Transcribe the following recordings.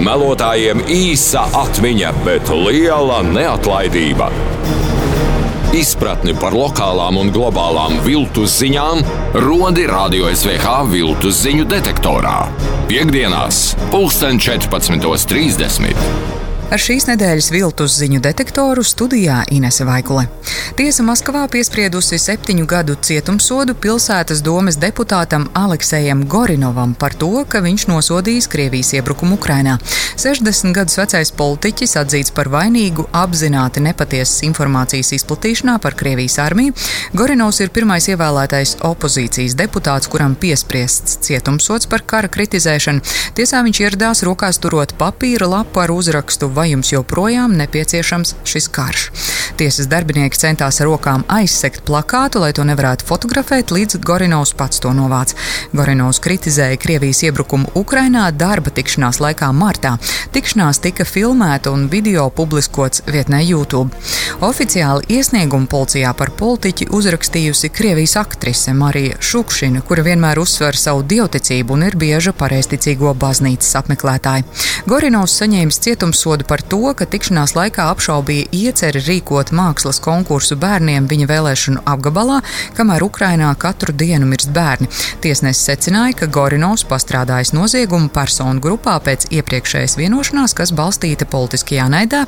Melotājiem īsa atmiņa, bet liela neatlaidība. Izpratni par lokālām un globālām viltus ziņām rodi Radio SVH viltus ziņu detektorā. Piektdienās, 14:30. Ar šīs nedēļas viltus ziņu detektoru studijā Inese Vaikule. Tiesa Maskavā piespriedusi 7 gadu cietumsodu pilsētas domes deputātam Aleksejam Gorinovam par to, ka viņš nosodījis Krievijas iebrukumu Ukrainā. 60 gadus vecais politiķis atzīts par vainīgu apzināti nepatiesas informācijas izplatīšanā par Krievijas armiju. Gorinovs ir pirmais ievēlētais opozīcijas deputāts, kuram piespriests cietumsods par kara kritizēšanu. Tiesā viņš ieradās rokās turot papīra lapu ar uzrakstu: vai jums joprojām nepieciešams šis karš? Tiesas darbinieki centās ar rokām aizsegt plakātu, lai to nevarētu fotografēt, līdz Gorinovs pats to novāc. Gorinovs kritizēja Krievijas iebrukumu Ukrainā darba tikšanās laikā martā. Tikšanās tika filmēta un video publiskots vietnē YouTube. Oficiāli iesniegumu policijā par politiķi uzrakstījusi Krievijas aktrise Marija Šukšina, kura vienmēr uzsver savu dievticību un ir bieža pareizticīgo baznīcas apmeklētāja. Gorinovs saņēmis cietumsodu par to, ka tikšanās laikā apšaubīja ieceri rīkot mākslas konkursu bērniem viņa vēlēšanu apgabalā, kamēr Ukrainā katru dienu mirst bērni. Tiesnesis secināja, ka Gorinovs pastrādājis noziegumu personu grupā pēc iepriekšējas vienošanās, kas balstīta politiskajā naidā.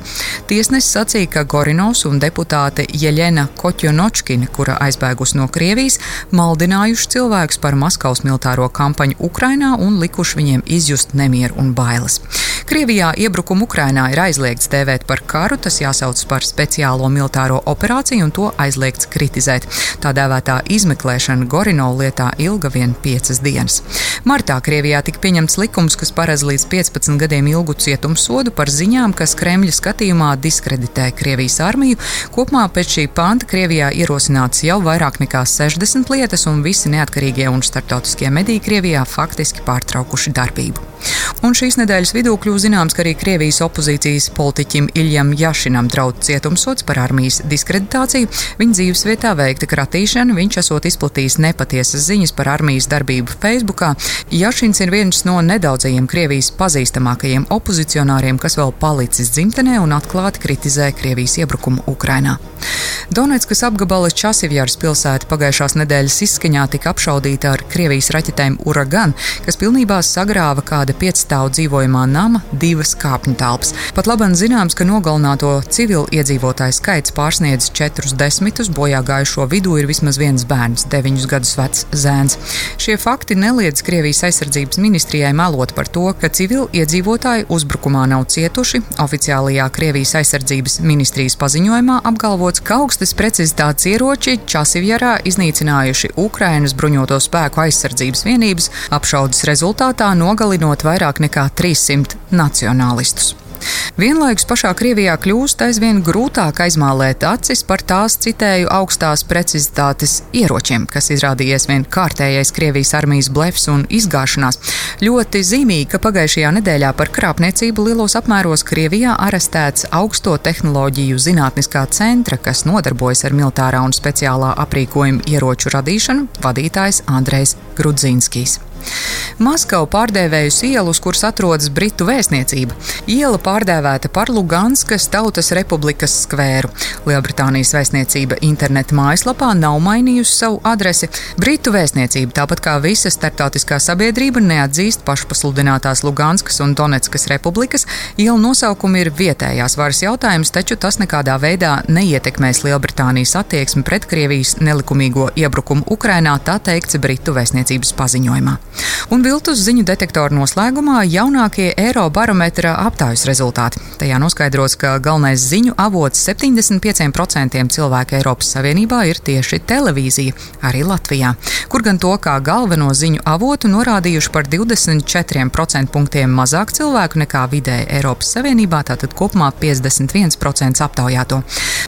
Tiesnesis sacīja, ka Gorinovs un deputāte Jeļena Kotjonočkina, kura aizbēgusi no Krievijas, maldinājuši cilvēkus par Maskavas militāro kampaņu Ukrainā un likuši viņiem izjust nemieru un bailes. Krievijā iebrukumu Ukrainā ir aizliegts dēvēt par karu, tas jāsauc par speciālo militāro operāciju un to aizliegts kritizēt. Tā dēvētā izmeklēšana Gorinova lietā ilga vien 5 dienas. Martā Krievijā tika pieņemts likums, kas paredz līdz 15 gadiem ilgu cietumsodu par ziņām, kas Kremļa skatījumā diskreditē Krievijas armiju. Kopumā pēc šī panta Krievijā ierosināts jau vairāk nekā 60 lietas, un visi neatkarīgie un starptautiskie mediji Krievijā faktiski pārtraukuši darbību. Un šīs nedēļas vidū kļūst zināms, ka arī Krievijas opozīcijas politiķim Iljam Jašinam draud cietumsods par armijas diskreditāciju. Viņa dzīvesvietā veikta kratīšana, viņš esot izplatījis nepatiesas ziņas par armijas darbību Facebookā. Jašins ir viens no nedaudzajiem Krievijas pazīstamākajiem opozicionāriem, kas vēl palicis dzimtenē un atklāti kritizē Krievijas iebrukumu Ukrainā. Donetskas apgabala Časivjaras pilsēta pagājušās nedēļas izskaņā tika apšaudīta ar Krievijas raķetēm Uragan, kas pilnībā sagrāva kāda 5-stāvu dzīvojamā nama 2 kāpņu telpas. Pat labam zināms, ka nogalināto civilu iedzīvotāju skaits pārsniedz 40, bojā gājušo vidū ir vismaz viens bērns, 9 gadus vecs zēns. Šie fakti neliedz Krievijas aizsardzības ministrijai melot par to, ka civilu iedzīvotāji uzbrukumā nav cietuši. Oficiālajā Krievijas aizsardzības ministrijas paziņojumā apgalvots, ka augstas precizitātes ieroči Časivjarā iznīcinājuši Ukrainas bruņoto spēku aizsardzības vienības, apšaudes rezultātā nogalinot vairāk nekā 300 nacionālistus. Vienlaikus pašā Krievijā kļūst aizvien grūtāk aizmālēt acis par tās, citēju, augstās precizitātes ieročiem, kas izrādījies vien kārtējais Krievijas armijas blefs un izgāšanās. Ļoti zīmīgi, ka pagājušajā nedēļā par krāpniecību lielos apmēros Krievijā arestēts augsto tehnoloģiju zinātniskā centra, kas nodarbojas ar militārā un speciālā aprīkojuma ieroču radīšanu, vadītājs Andrejs Grudzinskijs. Maskavu pārdēvējus ielu, uz kuras atrodas Britu vēstniecība. Iela pārdēvēta par Luganskas Tautas Republikas skvēru. Lielbritānijas vēstniecība interneta mājaslapā nav mainījusi savu adresi. Britu vēstniecība, tāpat kā visa starptautiskā sabiedrība, neatzīst pašpasludinātās Luganskas un Donetskas republikas. Iela nosaukumi ir vietējās varas jautājums, taču tas nekādā veidā neietekmēs Lielbritānijas attieksmi pret Krievijas nelikumīgo iebrukumu Ukrainā, tā teikts Britu vēstniecības paziņojumā. Un viltus ziņu detektoru noslēgumā jaunākie Eirobarometra aptaujas rezultāti. Tajā noskaidrots, ka galvenais ziņu avots 75% cilvēku Eiropas Savienībā ir tieši televīzija, arī Latvijā, kur gan to kā galveno ziņu avotu norādījuši par 24% punktiem mazāk cilvēku nekā vidēji Eiropas Savienībā, tātad kopumā 51% aptaujāto.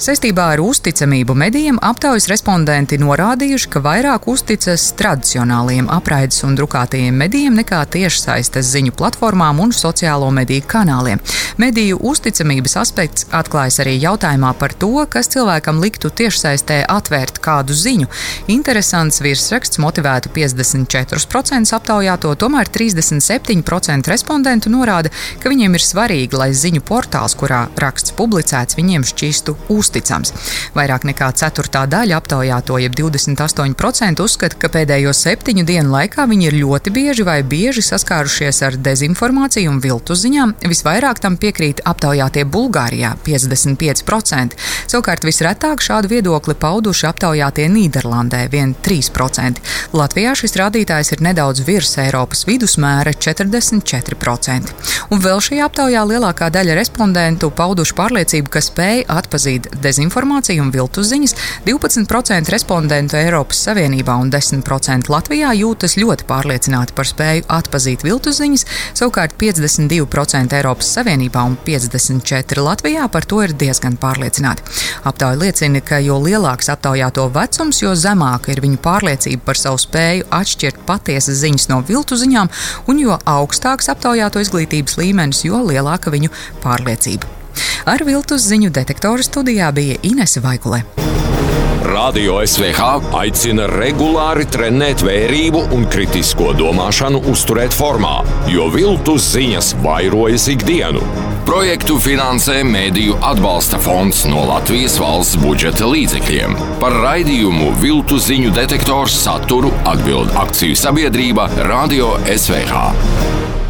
Saistībā ar uzticamību medijiem aptaujas respondenti norādījuši, ka vairāk uzticas tradicionālajiem apraides un drukātiem drukātajiem medijiem nekā tiešsaistes ziņu platformām un sociālo mediju kanāliem. Mediju uzticamības aspekts atklājas arī jautājumā par to, kas cilvēkam liktu tiešsaistē atvērt kādu ziņu. Interesants virsraksts motivētu 54% aptaujāto, tomēr 37% respondentu norāda, ka viņiem ir svarīgi, lai ziņu portāls, kurā raksts publicēts, viņiem šķistu uzticams. Vairāk nekā ceturtā daļa aptaujāto, jeb 28% uzskata, ka pēdējo 7 dienu laikā viņi ir ļoti bieži saskārušies ar dezinformāciju un viltus ziņām. Visvairāk tam piekrīt aptaujātie Bulgārijā - 55%. Savukārt visretāk šādu viedokli pauduši aptaujātie Nīderlandē - 3%. Latvijā šis rādītājs ir nedaudz virs Eiropas vidusmēra - 44%. Un vēl šajā aptaujā lielākā daļa respondentu pauduši pārliecību, ka spēj atpazīt dezinformāciju un viltus ziņas. 12% respondentu Eiropas Savienībā un 10% Latvijā jūtas ļoti pārliecināti par spēju atpazīt viltus ziņas, savukārt 52% Eiropas Savienībā un 54% Latvijā par to ir diezgan pārliecināti. Aptauja liecina, ka jo lielāks aptaujāto vecums, jo zemāka ir viņu pārliecība par savu spēju atšķirt patiesas ziņas no viltu ziņām, un jo augstāks aptaujāto izglītības līmenis, jo lielāka viņu pārliecība. Ar viltus ziņu detektoru studijā bija Inese Vaikule. Radio SVH aicina regulāri trenēt vērību un kritisko domāšanu uzturēt formā, jo viltus ziņas vairojas ikdienu. Projektu finansē Mēdīju atbalsta fonds no Latvijas valsts budžeta līdzekļiem. Par raidījumu Viltus ziņu detektors saturu atbild akciju sabiedrība Radio SVH.